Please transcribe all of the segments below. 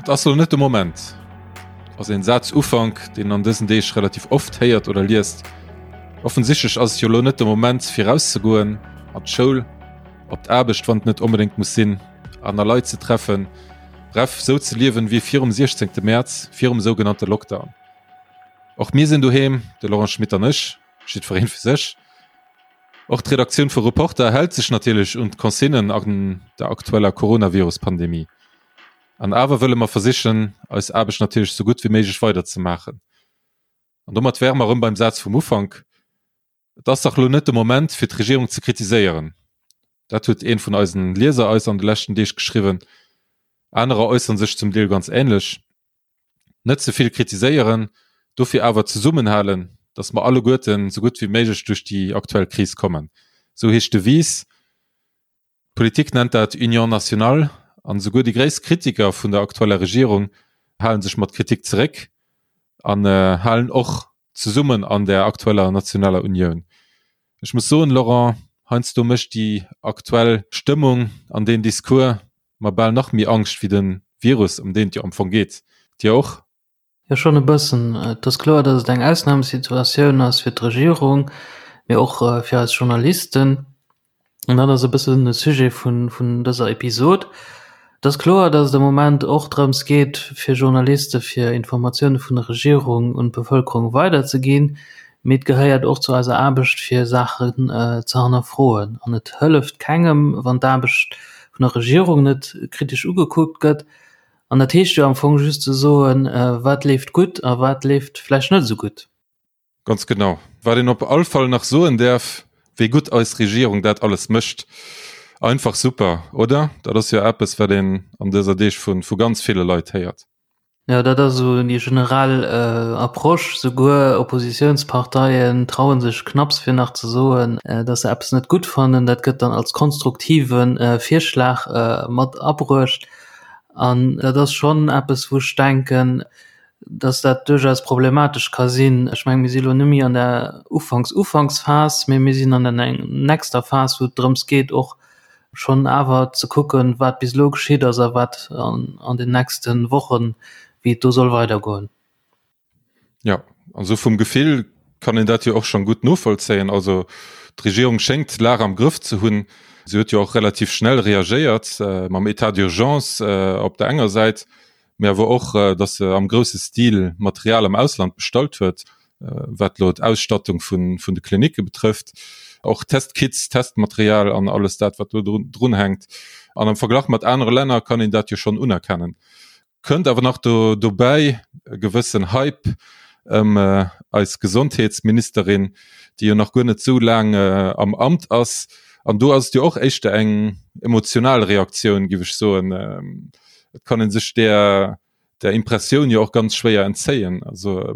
Et ass elo net de Moment ass een Sazufank, deen een an dësen Deeg relativ oft héiert oder liest. Offensichtlech ass et jo elo net de Moment fir rauszegoen, an d'Schoul, op d'Aarbecht, wann et net onbedéngt muss sinn, aner Leit ze treffen, bref, sou ze liewen wéi virum 16 Mäerz, virum sougenannte Lockdown. Och mir sinn doheem, de Laurent Schmit an ech, jiddwereen fir sech. Och d'Redaktioun vu Reporter hält sech natierlech un d'Consignen an der aktueller Coronavirus-Pandemie. An awer wëlle mer versichen, eis Aarbecht natierlech sou gutt wéi méiglech weiderzemaachen. An domat wäre mer erëm beim Saz vum Ufank, Et ass dach elo net de Moment, fir d'Regierung ze kritiséieren. Dat huet ee vun eisen Lieser eis an de leschten Deeg geschriwwen. Anerer äussere sech zum Deel ganz änlech. Net ze vill kritiséieren, dofir awer zesummenhalen, datt mer alleguerten sou gutt wéi méiglech duerch déi aktuell Kris kommen. Sou heescht d'Devise. D'Politik nennt dat Union nationale an esouguer déi gréisst Kritiker vun der aktueller Regierung hale sech mat Kritik zeréck an halen och zesummen an der aktueller nationaler Unioun. Ech muss soen, Laurent, heiansdo mécht déi aktuell Stëmmung an deen Discours mer bal nach méi Angscht wéi de Virus, ëm deen et jo am Fong geet. Dir och? Jo, schonn e bëssen. Et ass kloer, datt et eng Ausnamesituatioun ass fir d'Regierung, mee och fir eis Journalisten. An dat ass e bëssen de Sujet vun dëser Episod. Et ass kloer, datt et am Moment och drëms geet, fir Journaliste fir Informatioune vun der Regierung un d'Bevëlkerung weiderzeginn. Mee et gehéiert och zu eiser Aarbecht, fir Saachen ze hannerfroen. An et hëlleft kengem, wann d'Aarbecht vun der Regierung net kritesch ugekuckt gëtt. An dat heescht jo am Fong just ze soen, wat leeft gutt a wat leeft vläicht net esou gutt. Ganz genau. Wat een op all Fall nach soen däerf, wéi gutt eis Regierung dat alles mécht. Einfach super, oder? Dat ass jo eppes, wat een an dëser Deeg vu ganz ville Leit héiert. Jo, dat ass esou déi generell Approche. Souguer Oppositiounsparteien traue sech knapps fir nach ze soen, datt se eppes net gutt fannen. Dat gëtt dann als konstruktive Virschlag mat abruecht. An dat ass schonn eppes, wou ech denken, dass dat duerchaus problematesch ka sinn. Ech mengen, mir si lo net méi an der Ufanks-Ufanksphas, mee mir sinn an der nächster Phas, wou et drëms geet, och schonn awer ze kucken, wat bis elo geschitt ass a wat an den nächste Wochen, wéi et do soll weidergoen. Ja, also vum Gefill kann een dat jo och schon gutt novollzéien. Also d'Regierung schéngt d'Lag am Grëff ze hunn. Si huet jo och relativ schnell reagéiert äh, mam État d'urgence äh, op der enger Säit, mee awer och, äh, datt se am grousse Stil Material am Ausland bestallt huet, äh, wat lo d'Ausstattung vun, vun de Klinicke betrëfft, och Testkits, Testmaterial an alles dat, wat do drun, drun hänkt. An am Verglach mat anere Länner kann een dat jo schon unerkennen. Kënnt awer nach do dobäi e gewëssen Hype ëm eis Gesondheetsministerin, déi jo nach guer net esou laang am Amt ass. An do ass et jo och éischter eng emotional Reaktioun, géif ech soen. Et kann ee sech där där Impressioun jo och ganz schwéier entzéien. Also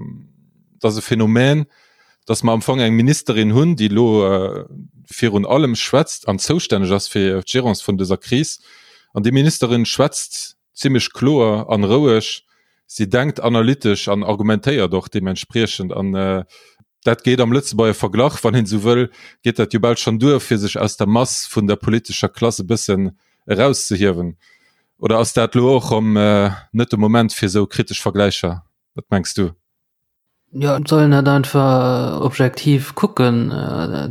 et ass e Phänomen, datt mer am Fong eng Ministerin hunn, déi elo virun allem schwätzt an zoustänneg ass fir d'Gérance vun dëser Kris. An déi Ministerin schwätzt zimmlech kloer an roueg, si denkt analytesch an argumentéiert och deementspriechend an dat geet am Lëtzebuerger Verglach, wann een esou wëll, geet dat jo bal schonn duer, fir sech aus der Mass vun der politescher Klass e bëssen erauszehiewen. Oder ass dat elo och erëm net de Moment fir esou kritesch Vergläicher? Wat mengs du? Jo, et soll een dat einfach objektiv kucken.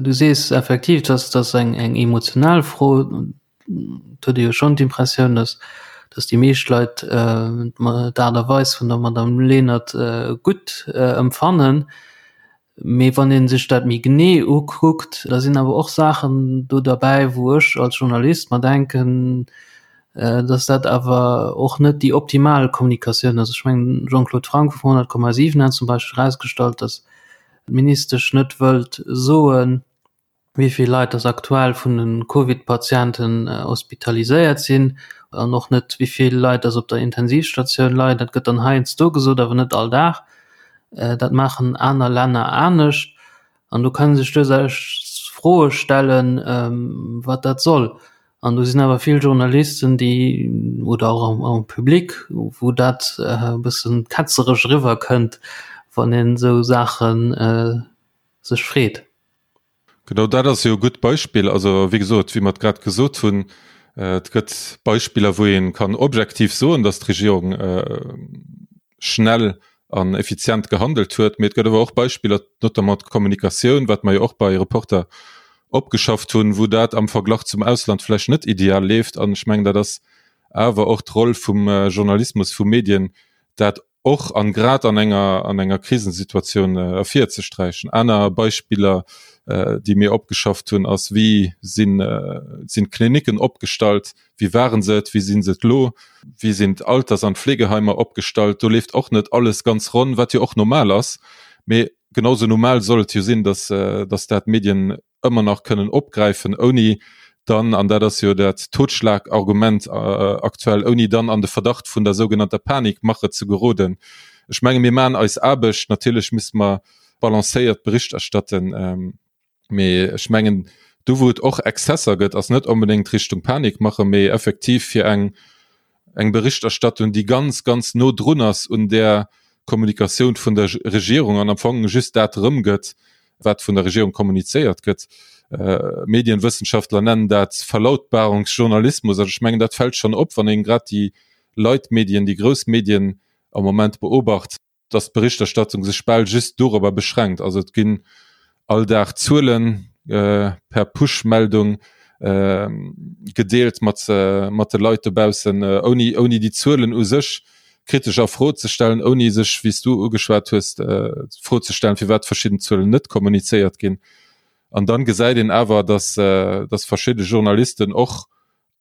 Du sees effektiv, dass dass eng eng emotional Fro. Et huet ee jo schonn d'Impressioun, dass dass déi meescht Leit d'Aart a Weis vun der Madame Lenert gutt empfannen. Mee wann ee sech dat méi genee ukuckt, da sinn awer och Saachen do derbäi, wou ech als Journalist mer denken, dass dat awer och net déi optimal Kommunikatioun ass. Ech mengen, Jean-Claude Franck vun 100,7 hat zum Beispill erausgestallt, dass d'Ministesch net wëllt soen, wéi vill Leit dass aktuell vun de Covid-Patienten hospitaliséiert sinn an och net, wéi vill Leit dass op der Intensivstatioun leien. Dat gëtt dann heiansdo gesot, awer net all Dag. Dat maachen aner Länner anescht. An do kann ee sech duerchaus Froe stellen, wat dat soll. An do sinn awer vill Journalisten, déi, oder och am am Public, wou dat e bëssen ketzeresch eriwwerkënnt, wann een esou Saache sech freet. Genau dat ass jo e gutt Beispill. Also wéi gesot, wéi mer et grad gesot hunn, Et gëtt Beispiller, wou ee kann objektiv soen, datt d'Regierung schnell an effizient gehandelt huet, mee et gëtt awer och Beispiller, notamment d'Kommunikatioun, wat mer jo och bei Reporter opgeschafft hunn, wou dat am Verglach zum Ausland vläicht net ideal leeft. An ech mengen, dat ass awer och d'Roll vum Journalismus, vu Medien, dat och an grad an enger an enger Krisensituatioun ervirzesträichen. Aner Beispiller, déi mir opgeschafft hunn, ass, wéi sinn sinn d'Klinicken opgestallt, wéi ware se et, wéi si se et elo, wéi sinn d'Alters an d'Fleegeheimer opgestallt. Do leeft och net alles ganz ronn, wat jo och normal ass. Mee genau sou normal soll et jo sinn, datt datt dat d'Medien ëmmer nach kënnen opgräifen, ouni dann, an dat ass jo dat Totschlagargument aktuell, ouni dann an de Verdacht vun der sougenannter Panikmache ze geroden. Ech menge mir maachen eis Aarbecht, natierlech misste mer balancéiert Bericht erstatten, mee ech mengen do wou et och Exzesser gëtt, ass net onbedéngt Richtung Panikmache, mee effektiv fir eng eng Berichterstattung, déi ganz, ganz no drun ass un där Kommunikatioun vun der Regierung an am Fong just dat erëmgëtt, wat vun der Regierung kommunizéiert gëtt. Medienwëssenschaftler nennen dat Verlautbarungsjournalismus. Also ech mengen, dat fält schonn op, wann een grad déi Leitmedien, déi grouss Medien am Moment beobacht. dass d'Berichterstattung sech bal just dorobber beschränkt. Also et ginn all Dag Zuele per Push-Meldung gedeelt mat mat de Leit dobaussen, ouni ouni déi Zuelen u sech kritesch a Fro ze stellen, ouni sech, wéi s du ugeschwat hues, d'Fro ze stellen, firwat verschidden Zuelen net kommunizéiert ginn. An dann gesäit een awer, dass dass verschidde Journalisten och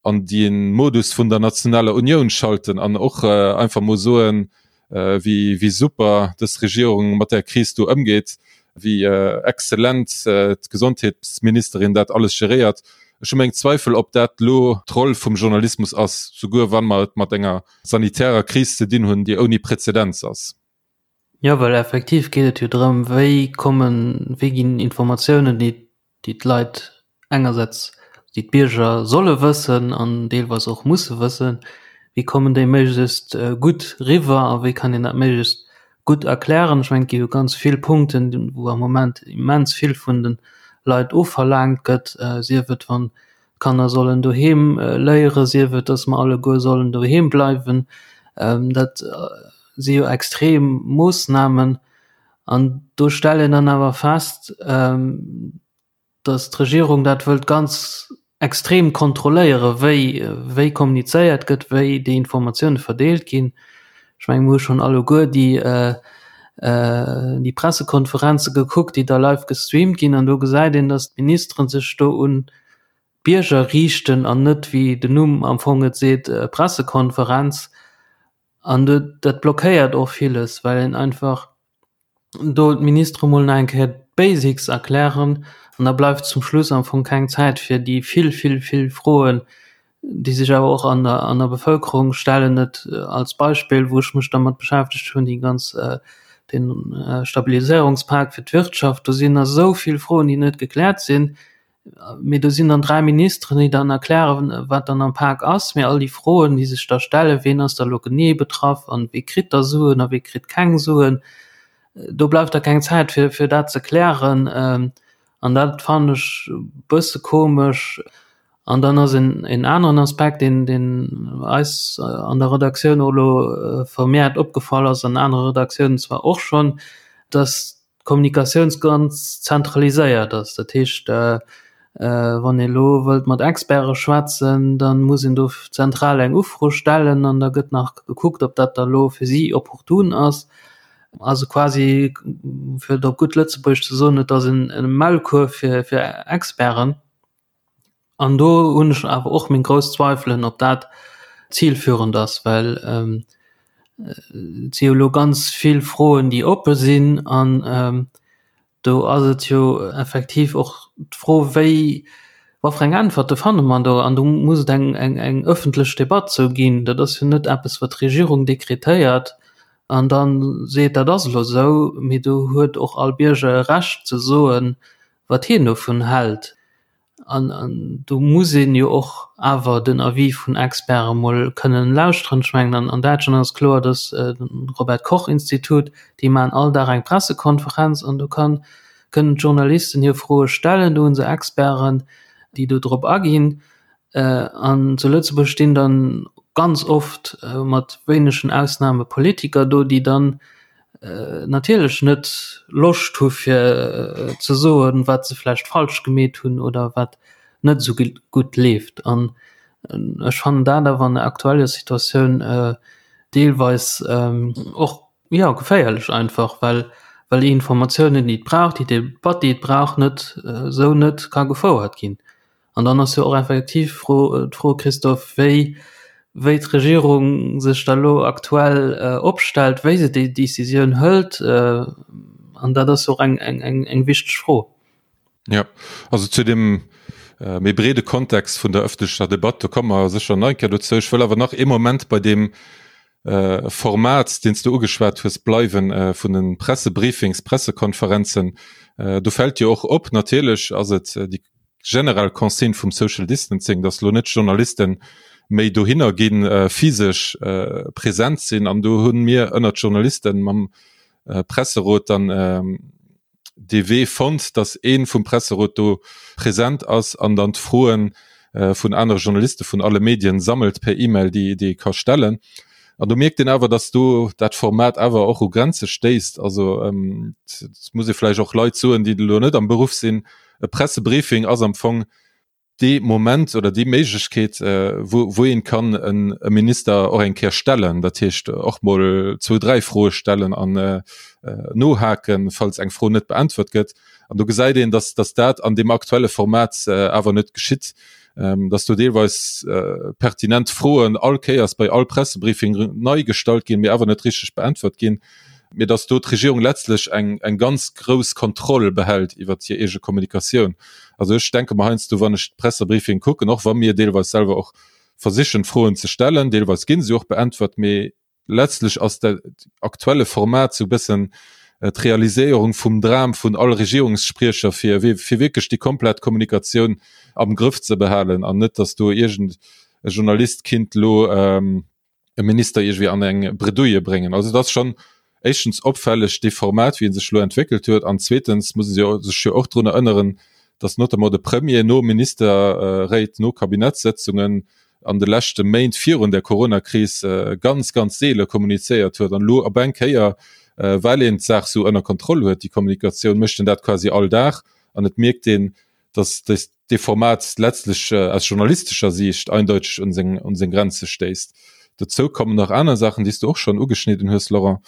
an de Modus vun der nationaler Unioun schalten an och einfach mol soen, wéi wéi super dës Regierung mat där Kris do ëmgeet, wéi exzellent d'Gesondheetsministerin dat alles geréiert. Ech hu meng Zweifel, ob dat elo d'Roll vum Journalismus ass, souguer wa mer et mat enger sanitärer Kris ze dinn hunn, déi ouni Präzedenz ass. Jo, well effektiv geet et jo drëm, wéi kommen, wéi ginn Informatiounen, déi déi d'Leit engersäts, déi d'Bierger solle wëssen an deelweis och musse wëssen, wéi kommen déi méiglechst gutt riwwer a wéi kann een dat méiglechst gutt erklären. Ech mengen, et gi jo ganz vill Punkten, wou am Moment immens vill vun de Leit ofverlaangt gëtt, sief et wann d'Kanner sollen doheem léieren, sief et, datt mer alleguer sollen doheem bleiwen. Dat si jo extrem Moossnamen. An do stellt een dann awer fest, datt d'Regierung dat wëllt ganz extrem kontrolléieren, wéi wéi kommunizéiert gëtt, wéi déi Informatioune verdeelt ginn. Ech menge mir hu schonn alleguer déi déi Pressekonferenze gekuckt, déi da live gestreamt ginn an do gesäit een, datt d'Ministere sech do un d'Bierger riichten an net, wéi den Numm am Fong et seet, Pressekonferenz. An dat blockéiert och villes, well een einfach do d'Ministere mol nach eng Kéier d'Basics erklären an da bleift zum Schluss am Fong keng Zäit fir déi vill, vill, vill Froen, déi sech awer och an der, an der Bevëlkerung stellen. Et als Beispill, wou ech mech dermat beschäftegt hunn, déi ganz, den Stabiliséierungspak fir d'Wirtschaft, do sinn nach esou vill Froen, déi net gekläert sinn. Mee do sinn dann 3 Ministeren, déi dann erklären, wat dann am Pak ass. Mee all déi Froen, déi sech da stellen, ween ass da lo genee betraff an wee kritt da Suen a wee kritt keng Suen, do bleift da keng Zäit fir, fir dat ze klären. An dat fannen ech e bësse komesch. An dann ass en, en aneren Aspekt, deen, deen eis an der Redaktioun och elo vermehrt opgefall ass, an anere Redaktiounen zwar och schonn, dass d'Kommunikatioun ganz zentraliséiert ass. Dat heescht, wann ee elo wëllt mat Experte schwätzen, da muss een do zentral eng Ufro stellen an da gëtt nach gekuckt, ob dat da elo fir si opportun ass. Also quasi, fir et op gutt Lëtzebuergesch ze soen, et ass e Maulkuerf fir Experten. An do hunn ech awer och meng grouss Zweifelen, ob dat zilführend ass, well et si jo elo ganz vill Froen, déi oppe sinn. An do ass et jo effektiv och d'Fro, wéi, wat fir eng Äntwerte fanne mer do? An do muss et eng, eng, eng ëffentlech Debatt zou ginn. Dat ass jo net eppes, wat d'Regierung dekretéiert an da seet, dat ass elo esou, mee do huet och all Bierger e Recht ze soen, wat hien dovun hält. An, an do muss een jo och awer den Avis vun Experte mol kënnen lauschteren. Ech mengen, an, an Däitschland ass kloer, dass äh, den Robert Koch Institut, déi maachen all Dag eng Pressekonferenz an do kann, kënnen d'Journalisten hir Froe stellen, do hu se Experten, déi do drop aginn. An zu Lëtzebuerg stinn dann ganz oft mat wéinegen Ausnahme Politiker do, déi dann natierlech net Loscht hu fir ze soen, wat se vläicht falsch gemeet hunn oder wat net esou gutt leeft. An ech fannen dat awer an der aktueller Situatioun deelweis och, jo, geféierlech einfach, well well déi Informatiounen, déi et brauch, déi Debatt, déi et brauch, net esou net ka gefouert ginn. An dann ass jo och effektiv d'Fro, d'Fro, Christophe, wéi, wéi d'Regierung sech da lo aktuell opstellt, wéi se déi Décisioun hëlt. An dat ass jo och eng, eng, eng, eng wichteg Fro. Jo, also zu deem méi breede Kontext vun der ëffentlecher Debatt, do komme mer sécher nach eng Kéier dozou. Ech wëll awer nach ee Moment bei deem Format, deen s du ugeschwat hues, bleiwen, vun de Pressebriefings, Pressekonferenzen. Do fält jo och op, natierlech ass et déi generell Consigne vum Social Distancing, dass elo net d'Journalisten méi dohinner ginn, physesch present sinn. An do hu mir ënnert Journalisten mam Presserot dann dee Wee fonnt, dass ee vum Presserot do present ass an dann d'Froen vun anere Journaliste vun alle Medien sammelt per E-Mail, déi déi ee ka stellen. An do mierkt een awer, dass do dat Format awer och u Grenze stéisst. Also et muss ee vläicht och Leit soen, déi elo net am Beruff sinn, E Pressebriefing ass am Fong dee Moment oder déi Méiglechkeet, wou, wou een kann en e Minister och eng Kéier stellen, dat heescht och mol zwou, dräi Froe stellen an nohaken, falls eng Fro net beäntwert gëtt. An do gesäit een, dass, dass dat an deem aktuelle Format awer net geschitt, dass do deelweis pertinent Froen all Kéiers bei all Pressebriefing nei gestallt ginn, mee awer net richteg beäntwert ginn. mee datt do d'Regierung letztlech eng, eng ganz grouss Kontroll behält iwwert hir eege Kommunikatioun. Also ech denke mer heiansdo, wann ech d'Pressebriefing kucken, och wa mir deelweis selwer och versichen Froen ze stellen, deelweis gi se och beäntwert, mee letztlech ass dat aktuelle Format sou e bëssen d'Realiséierung vum Dram vun all Regierungsspriecher, fir, fir wierklech déi komplett Kommunikatioun am Grëff ze behalen an net, datt do iergend e Journalist kinnt elo, e Minister iergendwéi an eng Bredouille bréngen. Also et ass schonn éischtens opfälleg dee Format wéi e sech elo entwéckelt huet an zweetens muss ee sech jo och drun erënneren, datt notamment de Premier no Ministerréit, no Kabinettssëtzungen an de leschte Méint virun der Coronakris ganz, ganz seele kommunizéiert huet an elo op eng Kéier, well een d'Saach sou ënner Kontroll huet, déi Kommunikatioun, mécht en dat quasi all Dag an et mierkt een, dass dee Format letztlech aus journalistescher Siicht eindeuteg un seng, un seng Grenze stéisst. Dozou kommen nach aner Saachen, déi s du och schonn ugeschnidden hues, Laurent,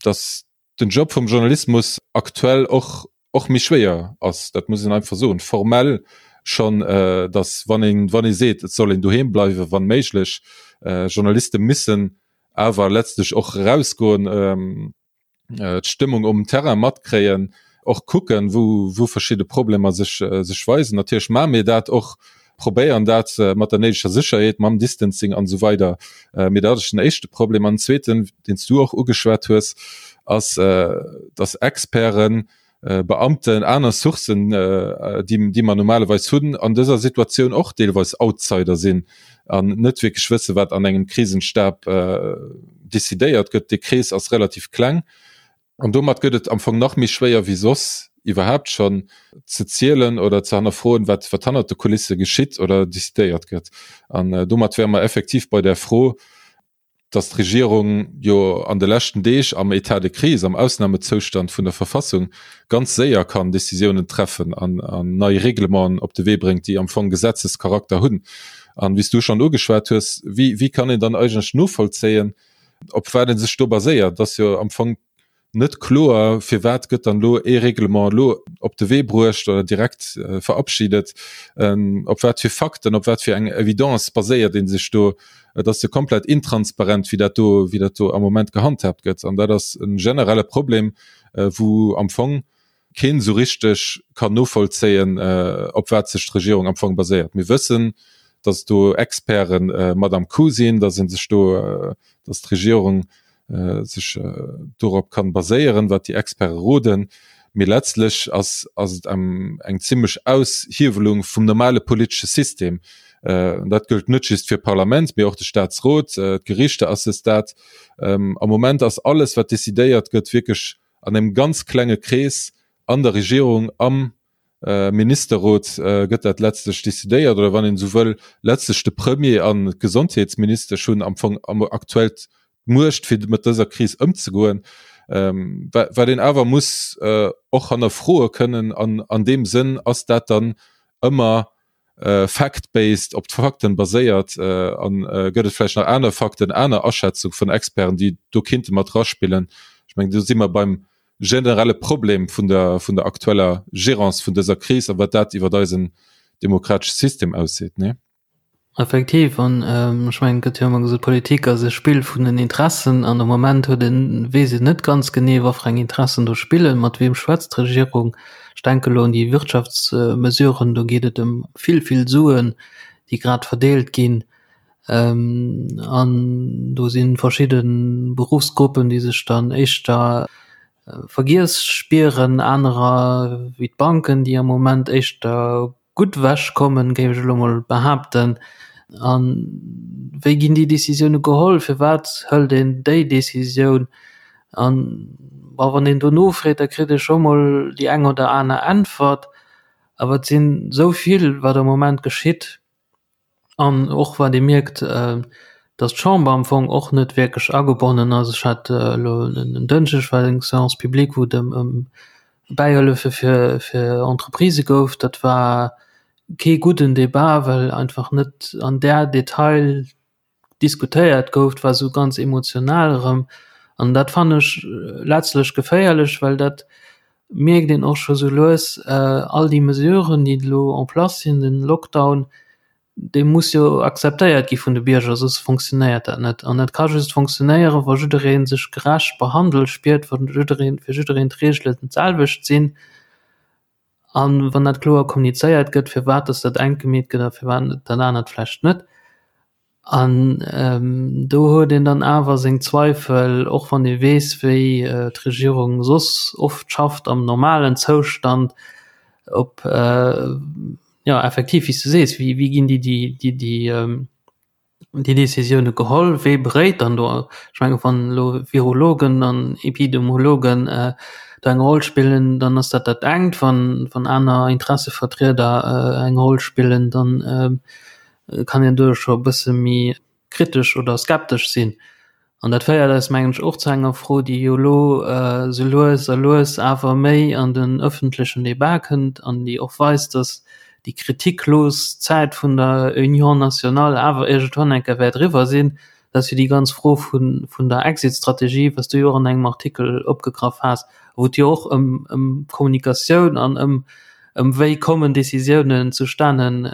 dass den Job vum Journalismus aktuell och, och méi schwéier ass. Dat muss een einfach soen. Formell schonn, dass wann een, wann ee seet, et soll een doheem bleiwen, wann méiglech, Journaliste missen awer letztlech och erausgoen, d'Stëmmung um Terrain matkréien, och kucken, wou, wou verschidde Problemer sech, sech weisen. Natierlech maache mir dat och, probéieren dat mat der néideger Sécherheet, mam Distancing an esou weider. Mee dat ass den éischte Problem. An den zweeten, deen s du och ugeschwat hues, ass, dass Experten, Beamten, aner Sourcen, déi, déi mer normalerweis hunn, an dëser Situatioun och deelweis Outsider sinn an net wierklech wëssen, wat an engem Krisenstab decidéiert gëtt. Dee Krees ass relativ kleng an domat gëtt et am Fong nach méi schwéier wéi soss iwwerhaapt schonn ze zielen oder ze hannerfroen, wat, wat hannert de Kulisse geschitt oder decidéiert gëtt. An domat wäre mer effektiv bei där Fro, dass d'Regierung jo an de leschten Deeg am État de crise, am Ausnahmezoustand vun der Verfassung ganz séier kann Décisiounen treffen an nei Reglementen op de Wee bréngt, déi am Fong Gesetzescharakter hunn. An, wéi s du schonn ugeschwat hues, wéi, wéi kann een dann eigentlech novollzéien, op wat ee sech do baséiert? Et ass jo am Fong net kloer, firwat gëtt dann elo ee Reglement elo op de Wee bruecht oder direkt verabschiedet, op wat fir Fakten, op wat fir eng Evidence baséiert ee sech do? Et ass jo komplett intransparent, wéi dat do, wéi dat do am Moment gehandhaabt gëtt. An dat ass e generelle Problem, wou am Fong keen esou richteg kann novollzéien, op wat sech d'Regierung am Fong baséiert. Mir wëssen, datt do Experte mat am Coup sinn, datt ee sech do, datt d'Regierung sech dorop kann baséieren, wat déi Experte roden. Mee letztlech ass ass et eng zimmlech Aushiewelung vum normale politesche System. Dat gëllt net just fir d'Parlament, mee och de Staatsrot, d'Gerichter à ce stade. Am Moment ass alles, wat decidéiert gëtt, wierklech an engem ganz klenge Krees an der Regierung, am. Ministerrot gëtt dat letztlech decidéiert, oder wann een esou wëll, letztlech de Premier an d'Gesondheetsministesch hunn am Fong am aktuell d'Muecht fir mat dëser Kris ëmzegoen, wat een awer muss och hannerfroe kënnen an an deem Sënn ass dat dann ëmmer fact-based, op d'Fakten baséiert an gëtt et vläicht nach aner Fakten, aner Aschätzung vun Experten, déi do kinnte mat raspillen. Ech mengen do si mer beim generelle Problem vun der, vun der aktueller Gérance vun dëser Kris a wat dat iwwer eisen demokratesche System ausseet, nee? Effektiv, an ech mengen, et gëtt jo ëmmer gesot, Politik ass e Spill vun den Interessen an am Moment huet een, weess een net ganz genee, wat fir eng Interessen do spillen, mat weem schwätzt d'Regierung. Ech denke elo un déi Wirtschaftsmesuren, do geet et ëm vill, vill Suen, déi grad verdeelt ginn. An do si verschidde Beruffsgruppen, déi sech dann éischter vergiess spieren, anerer wéi d'Banken, déi am Moment éischter gutt ewech kommen, géif ech elo mol behaapten. A wéi ginn déi Décisioune geholl? Firwat hëlt een déi Décisioun? An bon, wann een do nofreet, da kritt ee scho mol déi eng oder aner Äntwert. Awer et sinn esou vill, wat am Moment geschitt. An och wat ee mierkt, datt d'Chamber am Fong och net wierklech agebonnen ass. Ech hat elo en Dënschdeg war eng Séance publique, wou et ëm ëm Bäihëllefe fir fir Entreprisë gouf. Dat war kee gudden Debat, well einfach net an där Detail diskutéiert gouf, et war esou ganz emotional erëm an dat fannen ech letztlech geféierlech, well dat mierkt een och scho sou lues, all déi Mesuren, déi elo en place sinn, den Lockdown, dee muss jo akzeptéiert gi vun de Bierger, soss fonctionnéiert dat net. An dat ka just fonctionnéieren, wa jidderee sech gerecht behandelt spiert, wa jiddereen, fir jiddereen d'Reegelen d'selwecht sinn. An wann dat kloer kommunizéiert gëtt, firwat dass dat engt gemeet gëtt a firwat dat anert vläicht net. An do huet een dann awer seng Zweifel, och wann ee weess, wéi d'Regierung soss oft schafft am normalen Zoustand, ob, jo effektiv, wéi s du sees, wéi ginn déi déi déi déi Décisioune geholl? Wee beréit dann do? Ech menge wann elo Virologen an Epidemiologen do eng Roll spillen, dann ass dat dat engt. Wann wann aner Interessevertrieder eng Roll spillen, dann kann een do scho e bësse méi kritesch oder skeptesch sinn. An dat féiert eis, mengen ech, och zu enger Fro, déi jo elo esou lues a lues awer méi an den öffentlechen Débat kënnt an déi och weist, dass déi kritiklos Zäit vun der Union nationale awer iergendwann eng Kéier wäert eriwwer sinn. Dat ass jo déi ganz Fro vun der Exit-Strategie, wat s du jo och an engem Artikel opgegraff has, wou et jo och ëm Kommunikatioun an ëm ëm wéi kommen Décisiounen zustanen,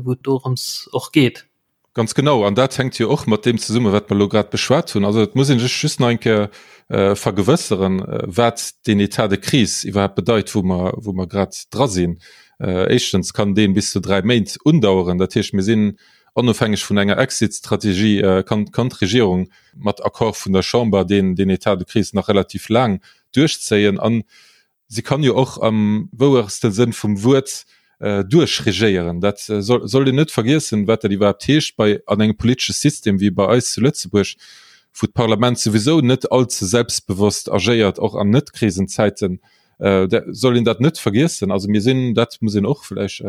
wou et dorëms och geet. Ganz genau, an dat hänkt jo och mat deem zesummen, wat mer elo grad beschwat hunn. Also et muss ee sech just nach eng Kéier vergewësseren, wat deen État de crise iwwerhaapt bedeit, wou mer, wou mer grad dra sinn. Éischtens kann dee bis zu 3 Méint undaueren. Dat heescht, mir sinn onofhängeg vun enger Exit-Strategie, kann, kann d'Regierung mat Accord vun der Chamber deen, deen État de crise nach relativ laang duerchzéien. An Si kann jo och am wouerste Sënn vum Wuert duerchregéieren. Dat sollt een net vergiessen, wat dat iwwerhaapt heescht bei an engem politesche System wéi bei eis zu Lëtzebuerg, wou d'Parlament souwisou net allze selbstbewosst agéiert, och an Net-Krisenzäiten, soll een dat net vergiessen. Also mir sinn, dat muss een och vläicht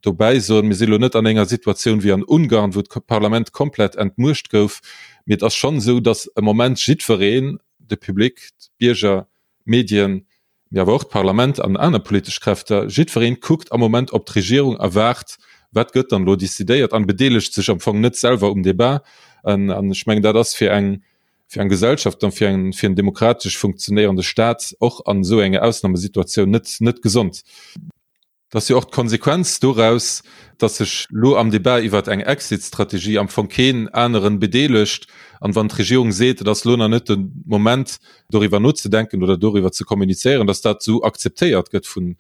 dobäi soen, mir si lo net an enger Situatioun wéi an Ungarn, wou d'Parlament komplett entmuecht gouf, mee et ass schonn esou, datt am Moment jiddwereen, de Public, d'Bierger, d'Medien, mee awer och d'Parlament an aner politesch Kräfter, jiddwereen kuckt am Moment op d'Regierung a waart, wat gëtt dann elo decidéiert an bedeelegt sech am Fong net selwer um Debat. An ech mengen, dat ass fir eng, fir eng Gesellschaft an fir eng, fir en demokratesch funktionéierende Staat och an esou enger Ausnamesituatioun net, net gesond. Et ass jo och d'Konsequenz doraus, datt sech lo am Debat iwwert eng Exit-Strategie am Fong keen aneren bedeelegt. An wann d'Regierung seet, et ass lo nach net de Moment doriwwer nozedenken oder doriwwer ze kommunizéieren, datt dat esou akzeptéiert gëtt vun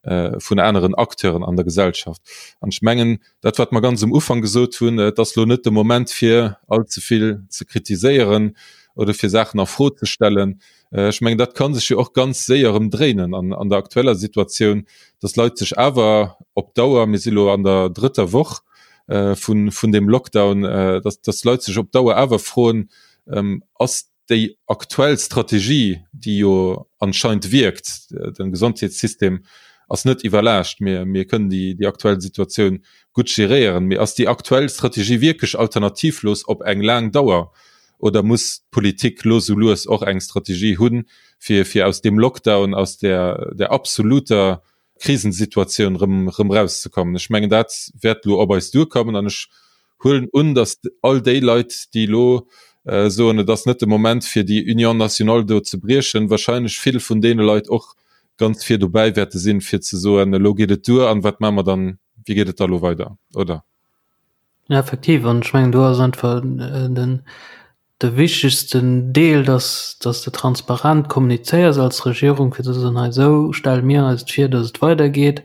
vun aneren Acteuren an der Gesellschaft. An ech mengen, dat wat mer ganz um Ufank gesot hunn, et ass lo net de Moment fir all ze vill ze kritiséieren oder fir Saachen a Fro ze stellen. Ech mengen, dat ka sech jo och ganz séier erëm dréinen an an der aktueller Situatioun, dass Leit sech awer op Dauer, mir si lo an der drëtter Woch vun vun deem Lockdown, dass dass Leit sech op Dauer awer froen, Ass déi aktuell Strategie, déi jo anscheinend wierkt, de Gesondheetssystem. ass net iwwerlaascht, mir, mir kënnen déi, déi aktuell Situatioun gutt geréieren. Mee ass déi aktuell Strategie wierklech alternativlos op eng laang Dauer oder muss d'Politik lo sou lues och eng Strategie hunn, fir, fir aus deem Lockdown, aus där, där absoluter Krisensituatioun rëm, rëm rauszekommen? Ech mengen, dat wäert lo op eis duerkommen an ech huelen un, datt all déi Leit, déi elo soen, et ass net de Moment fir déi Union nationale do ze briechen, wahrscheinlech vill vun deene Leit och ganz vir dobäi wäerte sinn, fir ze soen, elo geet et duer an wat maache mer dann, wéi geet et da elo weider, oder? Ja, effektiv. An ech mengen, do ass einfach den, de wichtegsten Deel, dass, dass de transparent kommunizéiers als Regierung, fir ze soen, hei esou stelle mir eis et vir, dass et weidergeet.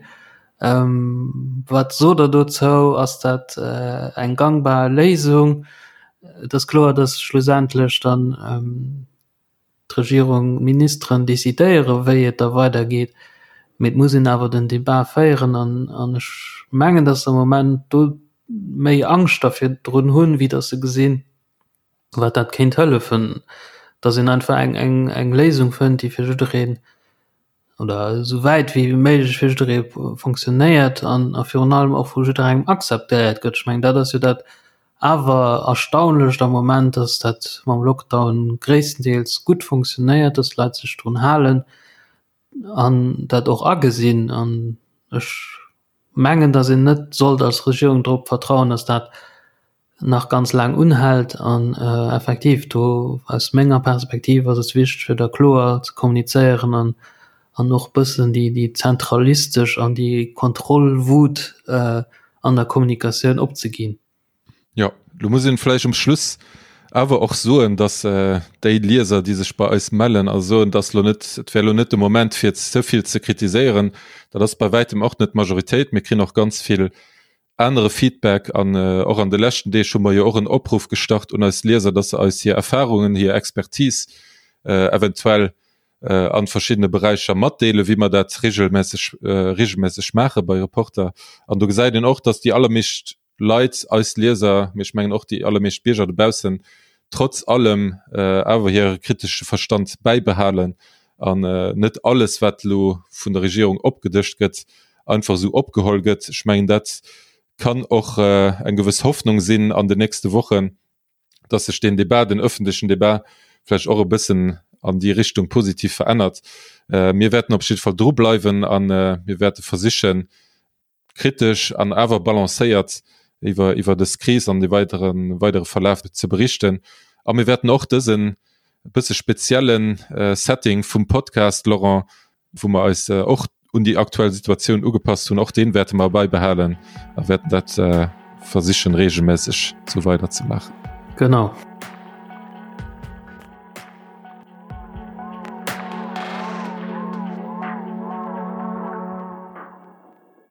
Wat sot Der dozou? Ass dat eng gangbar Léisung? Et ass kloer, dass schlussendlech dann d'Regierung, d'Ministeren decidéieren, wéi et da weidergeet, mee et muss een awer den Debat féieren an ech mengen, dass se am Moment do méi Angscht da virdrun hunn, wéi dass se gesinn, wat dat kéint hëllefen, dass een einfach eng, eng, eng Léisung fënnt, déi fir jiddereen oder esou wäit wéi méiglech fir jidderee fonctionnéiert an a virun allem och vu jidderengem akzeptéiert gëtt. Ech mengen, dat ass jo dat awer Erstaunlecht am Moment, dass dat mam Lockdown gréisstendeels gutt fonctionnéiert, dass d'Leit sech drun halen an dat och agesinn. An ech mengen, dass een net sollt als Regierung drop vertrauen, dass dat nach ganz laang unhält. An effektiv do aus menger Perspektiv ass et wichteg, fir da kloer ze kommunizéieren an an och bëssen déi déi zentralistesch an déi Kontrollwut an der Kommunikatioun opzeginn. Jo, lo muss een vläicht um Schluss awer och soen, dass déi Lieser, déi sech bei eis mellen a soen, dass lo net, et wär lo net de Moment fir ze vill ze kritiséieren, dat ass bei wäitem och net d'Majoritéit. Mir kréien och ganz vill anere Feedback an och an de leschten Deeg hu mer jo och en Opruff gestart un eis Lieser, dass se eis hir Erfahrungen, hir Expertise eventuell an verschiddene Beräicher matdeelen, wéi mer dat regelmässeg regelmässeg maache bei Reporter. An do gesäit een och, dass déi allermeescht Leit, eis Lieser, mee ech mengen och déi allermeescht Bierger dobaussen, trotz allem awer hire kritesche Verstand bäibehalen an net alles, wat elo vun der Regierung opgedëscht gëtt, einfach esou opgeholl gëtt. Ech mengen, dat kann och eng gewëss Hoffnung sinn an den nächste Wochen, dass sech deen Debat, den öffentlechen Debat vläicht och e bëssen an déi Richtung positiv verännert. Mir wäerten op jidde Fall drubleiwen a mir wäerte versichen, kritesch an awer balancéiert iwwer iwwer dës Kris an de weidere weidere Verlaf ze berichten. A mir wäerten och dësen e bësse speziellen Setting vum Podcast, Laurent, wou mer eis och un déi aktuell Situatioun ugepasst hunn, och deen wäerte mer bäibehalen a wäerten dat versichen reegelméisseg sou weider ze maachen. Genau.